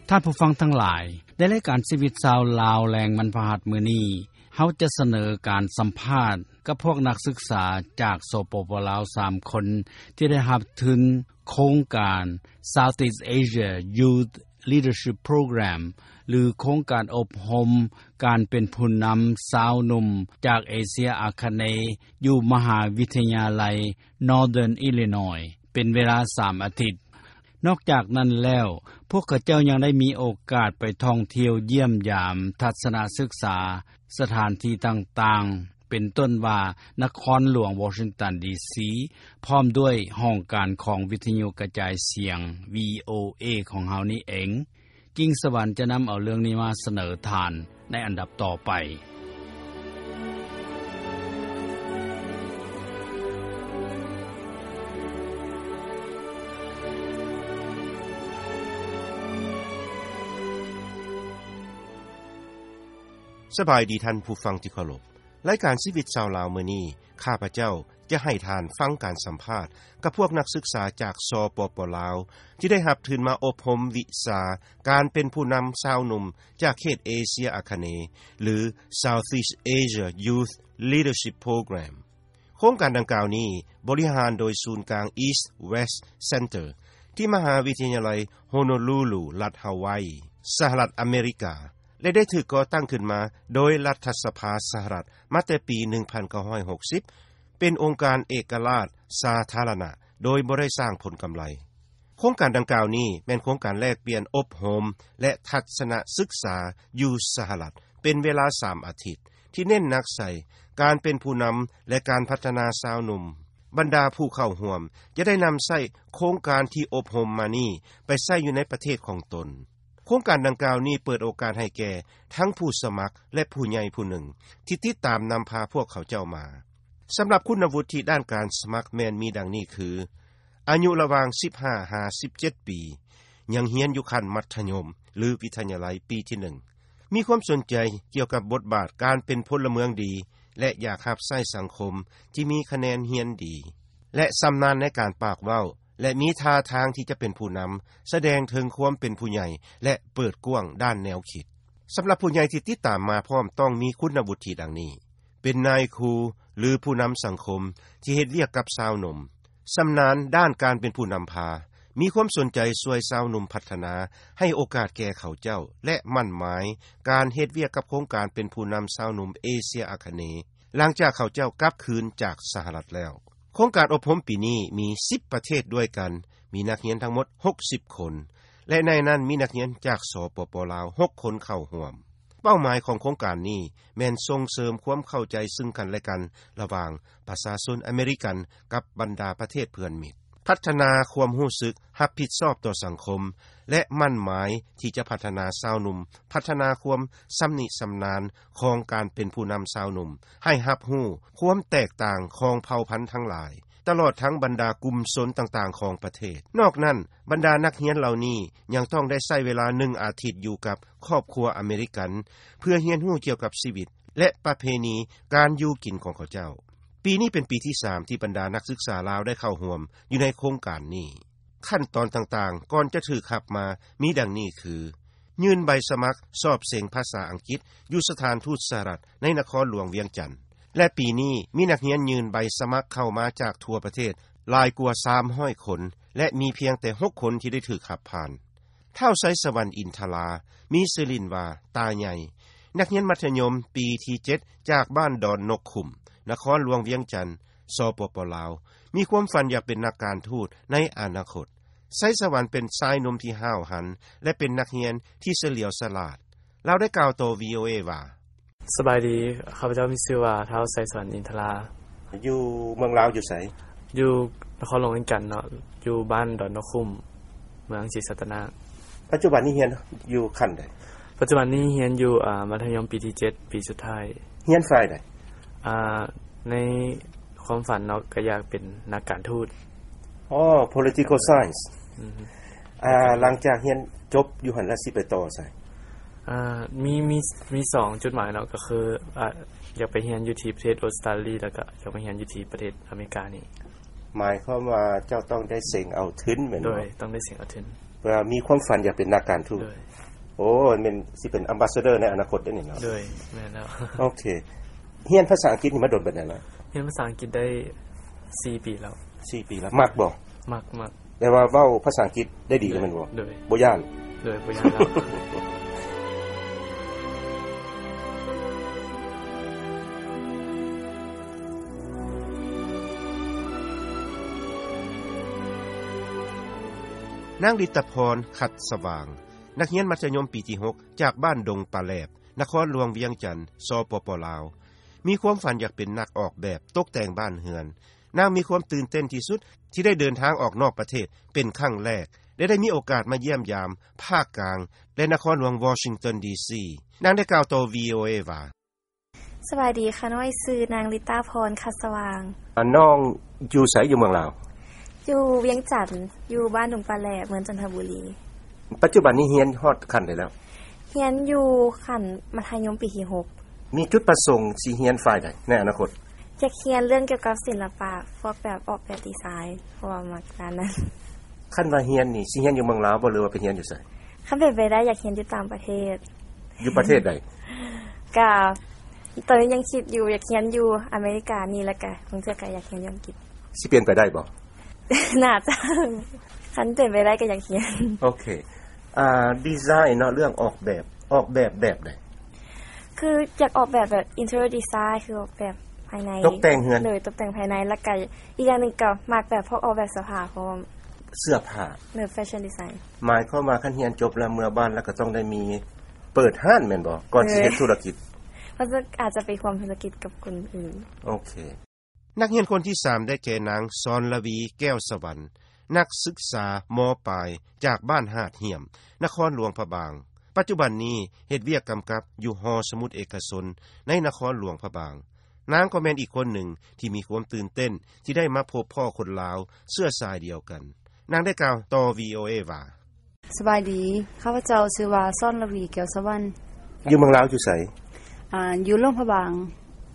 ທ່ານຜູ້ຟັງທັງຫຼາຍ, ໃນລາຍການຊີວິດຊາວລາວແລງວັນພະຫັດມື້ນີ້, ເຮົາຈະສະເໜີການສຳພາດກັບພວກນັກສຶກສາຈາກ ສປປ ລາວ ສາມຄົນ ທີ່ໄດ້ຮັບທຶນໂຄງການ Southeast Asia Youth Leadership Program ຫຼື ໂຄງການອົບຮົມການເປັນຜູ້ນຳຊາວໜຸ່ມຈາກເອເຊຍອາຄະເນ ຢູ່ມະຫາວິທະຍາໄລ Northern Illinois ເປັນເວລາສາມອາທິດ. ນອກຈາກນັ້ນແລ້ວ, ພວກເຂົາເຈົ້າຍັງໄດ້ມີໂອກາດໄປທ່ອງທ່ຽວຢ້ຽມຢາມ, ທັດສະນະສຶກສາສະຖານທີ່ຕ່າງໆ, ເປັນຕົ້ນວ່ານະຄອນຫຼວງວໍຊິງຕັນ ດີຊີ ພ້ອມດ້ວຍຫ້ອງການຂອງວິທະຍຸກະຈາຍສຽງ ວີໂອເອ ຂອງເຮົານີ້ເອງ. ກິ່ງສະຫວັນຈະນຳເອົາເລື່ອງນີ້ມາສະເໜີທ່ານໃນອັນດັບຕໍ່ໄປ. ສະບາຍດີທ່ານຜູ້ຟັງທີ່ເຄົາລົບ. ລາຍການຊີວິດຊາວລາວມື້ນີ້, ຂ້າພະເຈົ້າຈະໃຫ້ທ່ານຟັງການສຳພາດກັບພວກນັກສຶກສາຈາກ ສປປ ລາວ ທີ່ໄດ້ຮັບທຶນມາອົບຮົມວິຊາການເປັນຜູ້ນຳຊາວໜຸ່ມຈາກເຂດເອເຊຍອາຄະເນ ຫຼື Southeast Asia Youth Leadership Program. ໂຄງການດັ່ງກ່າວນີ້ບໍລິຫານໂດຍສູນກາງ East West Center ທີ່ມະຫາວິທະຍາໄລ Honolulu ລັດຮາວາຍ, ສະຫະລັດອາເມລິກາ ແລະ ໄດ້ຖືກກໍ່ຕັ້ງຂຶ້ນມາໂດຍລັດຖະສະພາສະຫະລັດມາແຕ່ປີໜຶ່ງພັນເກົ້າຮ້ອຍຫົກສິບ ເປັນອົງການເອກະລາດສາທາລະນະ ໂດຍບໍ່ໄດ້ສ້າງຜົນກຳໄລ. ໂຄງການດັ່ງກ່າວນີ້ແມ່ນໂຄງການແລກປ່ຽນອົບຮົມ ແລະ ທັດສະນະສຶກສາຢູ່ສະຫະລັດ ເປັນເວລາສາມອາທິດ ທີ່ເນັ້ນໜັກໃສ່ການເປັນຜູ້ນຳ ແລະ ການພັດທະນາຊາວໜຸ່ມ. ບັນດາຜູ້ເຂົ້າຮ່ວມຈະໄດ້ນຳໃຊ້ໂຄງການທີ່ອົບຮົມມານີ້ໄປໃຊ້ຢູ່ໃນປະເທດຂອງຕົນ. ໂຄງການດັ່ງກ່າວນີ້ເປີດໂອກາດໃຫ້ແກ່ທັງຜູ້ສະໝັກ ແລະ ຜູ້ໃຫຍ່ຜູ້ໜຶ່ງທີ່ຕິດຕາມນຳພາພວກເຂົາເຈົ້າມາ. ສຳລັບຄຸນນະວຸດທິດ້ານການສະໝັກແມ່ນມີດັ່ງນີ້ຄື: ອາຍຸລະຫວ່າງສິບຫ້າຫາສິບເຈັດປີ, ຍັງຮຽນຢູ່ຂັ້ນມັດທະຍົມ ຫຼື ວິທະຍາໄລປີທີໜຶ່ງ, ມີຄວາມສົນໃຈກ່ຽວກັບບົດບາດການເປັນພົນລະເມືອງດີ ແລະ ຢາກຮັບໃຊ້ສັງຄົມທີ່ມີຄະແນນຮຽນດີ ແລະ ຊຳນານໃນການປາກເວົ້າ ແລະ ມີທ່າທາງທີ່ຈະເປັນຜູ້ນຳ, ສະແດງເຖິງຄວາມເປັນຜູ້ໃຫຍ່ ແລະ ເປີດກວ້າງດ້ານແນວຄິດ. ສຳລັບຜູ້ໃຫຍ່ທີ່ຕິດຕາມມາພ້ອມຕ້ອງມີຄຸນນະວຸດທິດັ່ງນີ້: ເປັນນາຍຄູ ຫຼື ຜູ້ນຳສັງຄົມທີ່ເຮັດວຽກກັບຊາວໜຸ່ມ, ຊຳນານດ້ານການເປັນຜູ້ນຳພາ, ມີຄວາມສົນໃຈຊ່ວຍຊາວໜຸ່ມພັດທະນາ, ໃຫ້ໂອກາດແກ່ເຂົາເຈົ້າ ແລະ ໝັ້ນໝາຍການເຮັດວຽກກັບໂຄງການເປັນຜູ້ນຳຊາວໜຸ່ມເອເຊຍອາຄະເນ ຫຼັງຈາກເຂົາເຈົ້າກັບຄືນຈາກສະຫະລັດແລ້ວ. ໂຄງການອົບຮົມປີນີ້ມີສິບປະເທດດ້ວຍກັນ, ມີນັກຮຽນທັງໝົດຫົກສິບຄົນ ແລະ ໃນນັ້ນມີນັກຮຽນຈາກ ສປປ ລາວ ຫົກຄົນເຂົ້າຮ່ວມ. ເປົ້າໝາຍຂອງໂຄງການນີ້ແມ່ນສົ່ງເສີມຄວາມເຂົ້າໃຈຊຶ່ງກັນແລະກັນລະຫວ່າງປະຊາຊົນອາເມລິກັນກັບບັນດາປະເທດເພື່ອນມິດ, ພັດທະນາຄວາມຮູ້ສຶກຮັບຜິດຊອບຕໍ່ສັງຄົມ ແລະ ໝັ້ນໝາຍທີ່ຈະພັດທະນາຊາວໜຸ່ມ, ພັດທະນາຄວາມຊຳນິຊຳນານຂອງການເປັນຜູ້ນຳຊາວໜຸ່ມ, ໃຫ້ຮັບຮູ້ຄວາມແຕກຕ່າງຂອງເຜົ່າພັນທັງຫຼາຍ, ຕະຫຼອດທັງບັນດາກຸ່ມຊົນຕ່າງໆຂອງປະເທດ. ນອກນັ້ນ, ບັນດານັກຮຽນເຫຼົ່ານີ້ຍັງຕ້ອງໄດ້ໃຊ້ເວລາໜຶ່ງອາທິດຢູ່ກັບຄອບຄົວອາເມລິກັນ ເພື່ອຮຽນຮູ້ກ່ຽວກັບຊີວິດ ແລະ ປະເພນີການຢູ່ກິນຂອງເຂົາເຈົ້າ. ປີນີ້ເປັນປີທີສາມທີ່ບັນດານັກສຶກສາລາວໄດ້ເຂົ້າຮ່ວມຢູ່ໃນໂຄງການນີ້. ຂັ້ນຕອນຕ່າງໆກ່ອນຈະຖືກຮັບມາມີດັ່ງນີ້ຄື: ຍື່ນໃບສະໝັກສອບເສັງພາສາອັງກິດຢູ່ສະຖານທູດສະຫະລັດໃນນະຄອນຫຼວງວຽງຈັນ ແລະ ປີນີ້ມີນັກຮຽນຍື່ນໃບສະໝັກເຂົ້າມາຈາກທົ່ວປະເທດຫຼາຍກວ່າສາມຮ້ອຍຄົນ ແລະ ມີພຽງແຕ່ຫົກຄົນທີ່ໄດ້ຖືກຮັບຜ່ານ. ທ້າວ ໄຊສະຫວັນ ອິນທະລາ ມີຊື່ຫຼິ້ນວ່າ ຕາໃຫຍ່, ນັກຮຽນມັດທະຍົມປີທີເຈັດ ຈາກບ້ານດອນນົກຂຸ້ມ, ນະຄອນຫຼວງວຽງຈັນ, ສປປ ລາວ, ມີຄວາມຝັນຢາກເປັນນັກການທູດໃນອະນາຄົດ. ໄຊສະຫວັນເປັນຊາຍໜຸ່ມທີ່ຫ້າວຫັນ ແລະ ເປັນນັກຮຽນທີ່ສະຫຼຽວສະຫຼາດ. ລາວໄດ້ກ່າວຕໍ່ ວີໂອເອ ວ່າ: ສະບາຍດີ, ຂ້າພະເຈົ້າມີຊື່ວ່າ ທ້າວ ໄຊສະຫວັນ ອິນທະລາ. ຢູ່ເມືອງລາວຢູ່ໃສ? ຢູ່ນະຄອນຫຼວງວຽງຈັນເນາະ, ຢູ່ບ້ານດອນນົກຂຸ້ມ, ເມືອງສີສັດຕະນາກ. ປັດຈຸບັນນີ້ຮຽນຢູ່ຂັ້ນໃດ? ປັດຈຸບັນນີ້ຮຽນຢູ່ ອາ ມັດທະຍົມປີທີເຈັດ ປີສຸດທ້າຍ. ຮຽນຝ່າຍໃດ? ອາ ໃນຄວາມຝັນເນາະ ກໍຢາກເປັນນັກການທູດ. ອໍ political science. ອືມ. ອາ ຫຼັງຈາກຮຽນຈົບຢູ່ຫັ້ນແລ້ວ ຊິໄປຕໍ່ໃສ? ອາ ມີ ມີ ມີສອງຈຸດໝາຍເນາະ, ກໍຄື ອາ ຢາກໄປຮຽນຢູ່ທີ່ປະເທດອົດສະຕາລີ ແລ້ວກໍຢາກໄປຮຽນຢູ່ທີ່ປະເທດອາເມລິການີ້. ໝາຍຄວາມວ່າເຈົ້າຕ້ອງໄດ້ເສັງເອົາທຶນແມ່ນບໍ່? ໂດຍ, ຕ້ອງໄດ້ເສັງເອົາທຶນ. ວ່າມີຄວາມຝັນຢາກເປັນນັກການທູດ. ໂດຍ. ໂອ້ ແມ່ນຊິເປັນ ambassador ໃນອະນາຄົດໄດ້ນີ້ເນາະ. ໂດຍ ແມ່ນແລ້ວ. ໂອເຄ. ຮຽນພາສາອັງກິດນີ້ມາດົນປານໃດລະ? ຮຽນພາສາອັງກິດໄດ້ສີ່ປີແລ້ວ. ສີ່ປີແລ້ວ. ມັກບໍ່? ມັກ, ມັກ. ແປວ່າເວົ້າພາສາອັງກິດໄດ້ດີແມ່ນບໍ່? ໂດຍ. ບໍ່ຢ້ານ? ໂດຍ, ບໍ່ຢ້ານແລ້ວ. ນາງລິດຕະພອນ ຂັດສະຫວ່າງ, ນັກຮຽນມັດທະຍົມປີທີຫົກ ຈາກບ້ານດົງປາແຫຼບ, ນະຄອນຫຼວງວຽງຈັນ, ສປປ ລາວ, ມີຄວາມຝັນຢາກເປັນນັກອອກແບບຕົກແຕ່ງບ້ານເຮືອນ. ນາງມີຄວາມຕື່ນເຕັ້ນທີ່ສຸດທີ່ໄດ້ເດີນທາງອອກນອກປະເທດເປັນຄັ້ງແລກ ແລະ ໄດ້ມີໂອກາດມາຢ້ຽມຢາມພາກກາງ ແລະ ນະຄອນຫຼວງວໍຊິງຕັນ ດີຊີ. ນາງໄດ້ກ່າວຕໍ່ ວີໂອເອ ວ່າ, ສະບາຍດີຂ້ານ້ອຍ, ຊື່ນາງລິດຕາພອນ ຂັດສະຫວ່າງ. ອາ, ນ້ອງຢູ່ໃສ? ຢູ່ເມືອງລາວ? ຢູ່ວຽງຈັນ, ຢູ່ບ້ານດົງປາແຫຼບ, ເມືອງຈັນທະບູລີ. ປັດຈຸບັນນີ້ຮຽນຮອດຂັ້ນໃດແລ້ວ? ຮຽນຢູ່ຂັ້ນມັດທະຍົມປີທີຫົກ. ມີຈຸດປະສົງຊິຮຽນຝ່າຍໃດໃນອະນາຄົດ? ຢາກຮຽນເລື່ອງກ່ຽວກັບສິນລະປະ, ພວກແບບອອກແບບດີໄຊ, ເພາະວ່າມັກດ້ານນັ້ນ. ຄັນວ່າຮຽນນີ້ ຊິຮຽນຢູ່ເມືອງລາວບໍ່ ຫຼືວ່າໄປຮຽນຢູ່ໃສ? ຄັນເປັນໄປໄດ້ ຢາກຮຽນຢູ່ຕ່າງປະເທດ. ຢູ່ປະເທດໃດ? ກະ ຕອນນີ້ຍັງຄິດຢູ່, ຢາກຮຽນຢູ່ອາເມລິການີ້ ແລ້ວກະບາງເທື່ອກະຢາກຮຽນຢູ່ອັງກິດ. ຊິເປັນໄປໄດ້ບໍ່? ໜ້າຈະ, ຄັນເປັນໄປໄດ້ກໍຢາກຮຽນ. ໂອເຄ. ອາ, ດີໄຊເນາະ, ເລື່ອງອອກແບບ, ອອກແບບແບບໃດ? ຄືຢາກອອກແບບແບບ interior design ຄືອອກແບບພາຍໃນ, ຕົກແຕ່ງເຮືອນ. ໂດຍ, ຕົກແຕ່ງພາຍໃນ, ແລ້ວກະອີກຢ່າງໜຶ່ງກໍມັກແບບພວກອອກແບບເສື້ອຜ້າພ້ອມ. ເສື້ອຜ້າ. ໂດຍ, fashion design. ໝາຍຄວາມວ່າຄັນຮຽນຈົບແລ້ວເມືອບ້ານແລ້ວກໍຕ້ອງໄດ້ມີເປີດຮ້ານແມ່ນບໍ່? ກ່ອນຊິເຮັດທຸລະກິດ. ເອີ, ເພາະອາດຈະໄປຮ່ວມທຸລະກິດກັບຄົນອື່ນ. ໂອເຄ. ນັກຮຽນຄົນທີສາມ ໄດ້ແກ່ນາງ ສອນລະວີ ແກ້ວສະຫວັນ, ນັກສຶກສາ ມ.ປາຍ ຈາກບ້ານຫາດຫ້ຽມ, ນະຄອນຫຼວງພະບາງ. ປັດຈຸບັນນີ້ເຮັດວຽກກຳກັບຢູ່ຫໍສະໝຸດເອກະຊົນໃນນະຄອນຫຼວງພະບາງ. ນາງກໍແມ່ນອີກຄົນໜຶ່ງທີ່ມີຄວາມຕື່ນເຕັ້ນທີ່ໄດ້ມາພົບພໍ້ຄົນລາວເຊື້ອສາຍດຽວກັນ. ນາງໄດ້ກ່າວຕໍ່ ວີໂອເອ ວ່າ, ສະບາຍດີ, ຂ້າພະເຈົ້າຊື່ວ່າ ສອນລະວີ ແກ້ວສະຫວັນ. ຢູ່ເມືອງລາວຢູ່ໃສ? ອາ, ຢູ່ຫຼວງພະບາງ,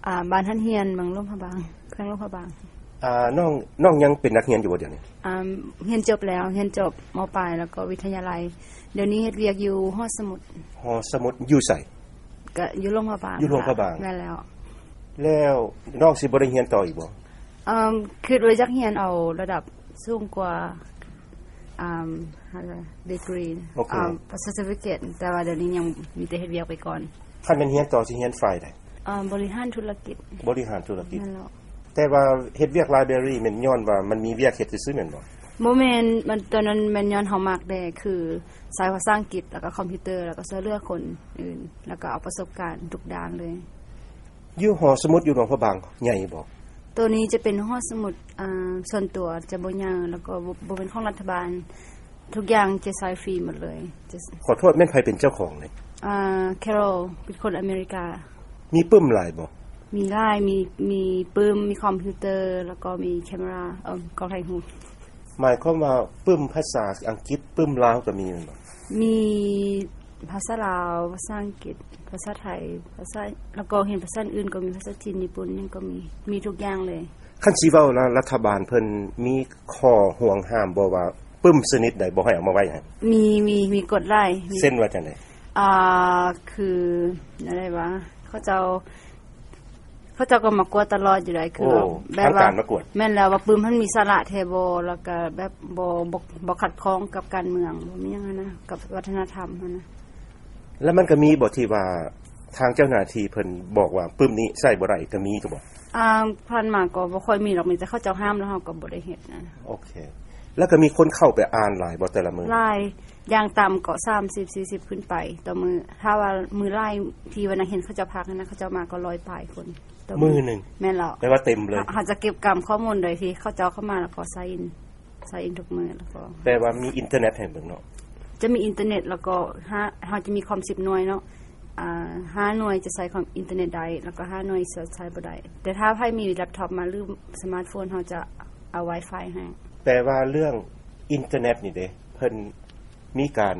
ອາ, ບ້ານຫັນຮຽນ, ເມືອງຫຼວງພະບາງ, ແຂວງຫຼວງພະບາງ. ອາ, ນ້ອງ, ນ້ອງຍັງເປັນນັກຮຽນຢູ່ບໍ່ດຽວນີ້? ອາ, ຮຽນຈົບແລ້ວ, ຮຽນຈົບ ມ.ປາຍ ແລ້ວກໍວິທະຍາໄລ. ດຽວນີ້ເຮັດວຽກຢູ່ຫໍສະໝຸດ. ຫໍສະໝຸດຢູ່ໃສ? ກະຢູ່ຫຼວງພະບາງ. ຢູ່ຫຼວງພະບາງ. ແມ່ນແລ້ວ. ແລ້ວນ້ອງຊິບໍ່ໄດ້ຮຽນຕໍ່ອີກບໍ່? ອາ, ຄິດວ່າຢາກຮຽນເອົາລະດັບສູງກວ່າ, ອາ, degree, ໂອເຄ, ອາ, certificate, ແຕ່ວ່າດຽວນີ້ຍັງມີແຕ່ເຮັດວຽກໄປກ່ອນ. ຄັນແມ່ນຮຽນຕໍ່ຊິຮຽນຝ່າຍໃດ? ອາ, ບໍລິຫານທຸລະກິດ. ບໍລິຫານທຸລະກິດ. ແມ່ນແລ້ວ. ແຕ່ວ່າເຮັດວຽກ library ແມ່ນຍ້ອນວ່າມັນມີວຽກເຮັດຊື່ໆແມ່ນບໍ່? ບໍ່ແມ່ນ, ມັນ, ຕອນນັ້ນແມ່ນຍ້ອນເຮົາມັກແດ່, ຄືສາຍພາສາອັງກິດ ແລ້ວກໍຄອມພິວເຕີ ແລ້ວກໍຊ່ວຍເຫຼືອຄົນອື່ນ, ແລ້ວກໍເອົາປະສົບການທຸກດ້ານເລີຍ. ຢູ່ຫໍສະໝຸດຢູ່ຫຼວງພະບາງໃຫຍ່ບໍ່? ໂຕນີ້ຈະເປັນຫໍສະໝຸດ, ອາ, ສ່ວນຕົວ, ຈະບໍ່ໃຫຍ່ ແລ້ວກໍບໍ່, ບໍ່ແມ່ນຂອງລັດຖະບານ. ທຸກຢ່າງຈະໃຊ້ຟຣີໝົດເລີຍ. ຂໍໂທດ, ແມ່ນໃຜເປັນເຈົ້າຂອງນີ້? ອາ, Carol ເປັນຄົນອາເມລິກາ. ມີປຶ້ມຫຼາຍບໍ່? ມີຫຼາຍ, ມີ, ມີປຶ້ມ, ມີຄອມພິວເຕີ ແລ້ວກໍມີແຄມຣາ, ເອີ, ກ້ອງຖ່າຍຮູບ. ໝາຍຄວາມວ່າປຶ້ມພາສາອັງກິດ, ປຶ້ມລາວກໍມີແມ່ນບໍ່? ມີພາສາລາວ, ພາສາອັງກິດ, ພາສາໄທ, ພາສາ, ແລ້ວກໍຮຽນພາສາອື່ນກໍມີ, ພາສາຈີນ, ຍີ່ປຸ່ນ, ຫຍັງກໍມີ, ມີທຸກຢ່າງເລີຍ. ຄັນຊິເວົ້າລະ, ລັດຖະບານເພິ່ນມີຂໍ້ຫ່ວງຫ້າມບໍ່ວ່າປຶ້ມຊະນິດໃດບໍ່ໃຫ້ເອົາມາໄວ້ໃຫ້? ມີ, ມີ, ມີກົດຫຼາຍ. ເຊັ່ນວ່າຈັ່ງໃດ? ອ່າ, ຄືແນວໃດວະ? ເຂົາເຈົ້າ, ເຂົາເຈົ້າກໍມາກວດຕະຫຼອດຢູ່ໃດ໋. ຄື ໂອ້ ແບບວ່າ ທາງການມາກວດ. ແມ່ນແລ້ວ, ວ່າປຶ້ມຫັ້ນມີສາລະແທ້ບໍ່, ແລ້ວກໍແບບບໍ່, ບໍ່, ບໍ່ຂັດຂ້ອງກັບການເມືອງ, ບໍ່ມີຫຍັງຫັ້ນນະ, ກັບວັດທະນະທຳຫັ້ນນະ. ແລ້ວມັນກໍມີບໍ່ທີ່ວ່າທາງເຈົ້າໜ້າທີ່ເພິ່ນບອກວ່າປຶ້ມນີ້ໃຊ້ບໍ່ໄດ້ ກໍມີຢູ່ບໍ່? ອ່າ, ຜ່ານມາກໍບໍ່ຄ່ອຍມີດອກ, ມີແຕ່ເຂົາເຈົ້າຫ້າມແລ້ວເຮົາກໍບໍ່ໄດ້ເຮັດນະ. ໂອເຄ. ແລ້ວກໍມີຄົນເຂົ້າໄປອ່ານຫຼາຍບໍ່ແຕ່ລະມື້? ຫຼາຍ, ຢ່າງຕ່ຳກໍສາມສິບ ສີ່ສິບຂຶ້ນໄປຕໍ່ມື້. ຖ້າວ່າມື້ຫຼາຍທີ່ວ່ານັກຮຽນເຂົາເຈົ້າພັກຫັ້ນນະ, ເຂົາເຈົ້າມາກໍຮ້ອຍປາຍຄົນຕໍ່ມື້. ມື້ໜຶ່ງ? ແມ່ນແລ້ວ. ແປວ່າເຕັມເລີຍ. ເຮົາ, ເຮົາຈະເກັບກຳຂໍ້ມູນໂດຍທີ່ເຂົາເຈົ້າເຂົ້າມາແລ້ວກໍ sign in, sign in ທຸກມື້ ແລ້ວກໍ ແປວ່າມີອິນເຕີເນັດໃຫ້ເບິ່ງເນາະ? ຈະມີອິນເຕີເນັດ ແລ້ວກໍຫ້າ, ເຮົາຈະມີຄອມສິບໜ່ວຍເນາະ. ອ່າ, ຫ້າໜ່ວຍຈະໃຊ້ຄອມອິນເຕີເນັດໄດ້ ແລ້ວກໍຫ້າໜ່ວຍຈະໃຊ້ບໍ່ໄດ້. ແຕ່ຖ້າໃຜມີແລັບທັອບມາ ຫຼື ສະມາດໂຟນ ເຮົາຈະເອົາ Wi-Fi ໃຫ້. ແປວ່າເລື່ອງອິນເຕີເນັດນີ້ເດ ເພິ່ນມີການ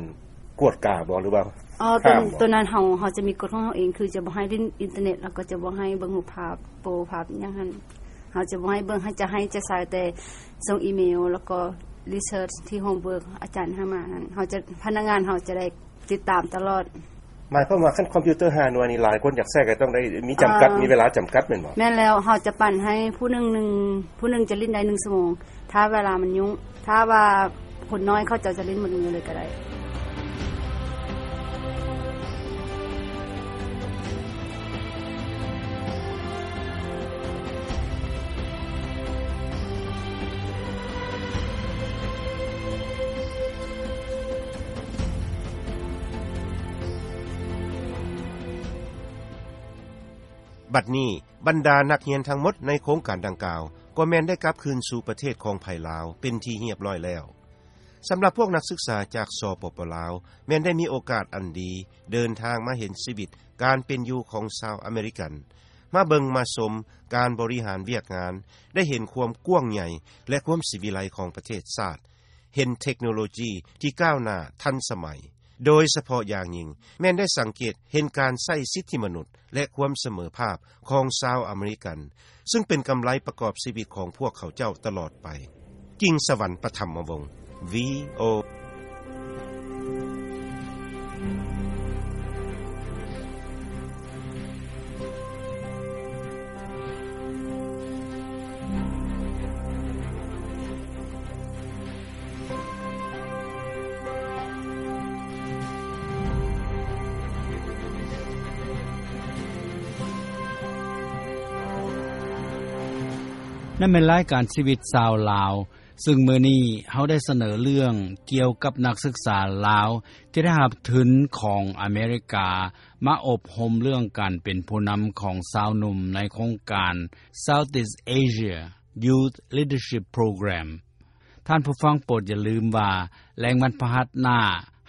ກວດກາບໍ່ ຫຼືວ່າ ອໍ ໂຕ ຫ້າມບໍ່? ໂຕນັ້ນເຮົາ, ເຮົາຈະມີກົດຂອງເຮົາເອງ, ຄືຈະບໍ່ໃຫ້ຫຼິ້ນອິນເຕີເນັດ ແລ້ວກໍຈະບໍ່ໃຫ້ເບິ່ງຮູບພາບ, ໂປພາບຫຍັງຫັ້ນ ເຮົາຈະບໍ່ໃຫ້ເບິ່ງ, ເຮົາຈະໃຫ້, ຈະໃຊ້ແຕ່ສົ່ງອີເມວ ແລ້ວກໍ research ທີ່ homework ອາຈານໃຫ້ມານັ້ນ ເຮົາຈະ ພະນັກງານເຮົາຈະໄດ້ຕິດຕາມຕະຫຼອດ. ໝາຍຄວາມວ່າ ຄັນຄອມພິວເຕີຫ້າໜ່ວຍນີ້ ຫຼາຍຄົນຢາກໃຊ້ກໍຕ້ອງໄດ້ມີຈຳກັດ ອ່າ ມີເວລາຈຳກັດແມ່ນບໍ່? ແມ່ນແລ້ວ ເຮົາຈະປັນໃຫ້ຜູ້ໜຶ່ງ ໜຶ່ງ ຜູ້ໜຶ່ງຈະຫຼິ້ນໄດ້ໜຶ່ງຊົ່ວໂມງ ຖ້າເວລາມັນຫຍຸ້ງ. ຖ້າວ່າຄົນນ້ອຍ ເຂົາເຈົ້າຈະຫຼິ້ນໝົດມື້ເລີຍກໍໄດ້. ບັດນີ້ ບັນດານັກຮຽນທັງໝົດໃນໂຄງການດັ່ງກ່າວ ກໍແມ່ນໄດ້ກັບຄືນສູ່ປະເທດຂອງໃຜລາວ ເປັນທີ່ຮຽບຮ້ອຍແລ້ວ. ສຳລັບພວກນັກສຶກສາຈາກ ສປປ ລາວ ແມ່ນໄດ້ມີໂອກາດອັນດີ ເດີນທາງມາເຫັນຊີວິດການເປັນຢູ່ຂອງຊາວອາເມລິກັນ, ມາເບິ່ງມາຊົມການບໍລິຫານວຽກງານ, ໄດ້ເຫັນຄວາມກວ້າງໃຫຍ່ ແລະ ຄວາມສີວິໄລຂອງປະເທດຊາດ, ເຫັນເທັກໂນໂລຈີທີ່ກ້າວໜ້າທັນສະໄໝ, ໂດຍສະເພາະຢ່າງຍິ່ງ ແມ່ນໄດ້ສັງເກດເຫັນການໃຊ້ສິດທິມະນຸດ ແລະ ຄວາມສະເໝີພາບຂອງຊາວອາເມລິກັນ, ຊຶ່ງເປັນກຳໄລປະກອບຊີວິດຂອງພວກເຂົາເຈົ້າຕະຫຼອດໄປ. ກິ່ງສະຫວັນ ປະຖຳມະວົງ ວີໂອ ນັ້ນແມ່ນລາຍການຊີວິດຊາວລາວ, ຊຶ່ງມື້ນີ້ເຮົາໄດ້ສະເໜີເລື່ອງກ່ຽວກັບນັກສຶກສາລາວທີ່ໄດ້ຮັບທຶນຂອງອາເມລິກາ ມາອົບຮົມເລື່ອງການເປັນຜູ້ນຳຂອງຊາວໜຸ່ມໃນໂຄງການ Southeast Asia Youth Leadership Program. ທ່ານຜູ້ຟັງໂປດຢ່າລືມວ່າ ແລງວັນພະຫັດໜ້າ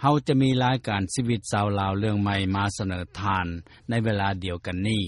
ເຮົາຈະມີລາຍການຊີວິດຊາວລາວເລື່ອງໃໝ່ມາສະເໜີທ່ານໃນເວລາດຽວກັນນີ້.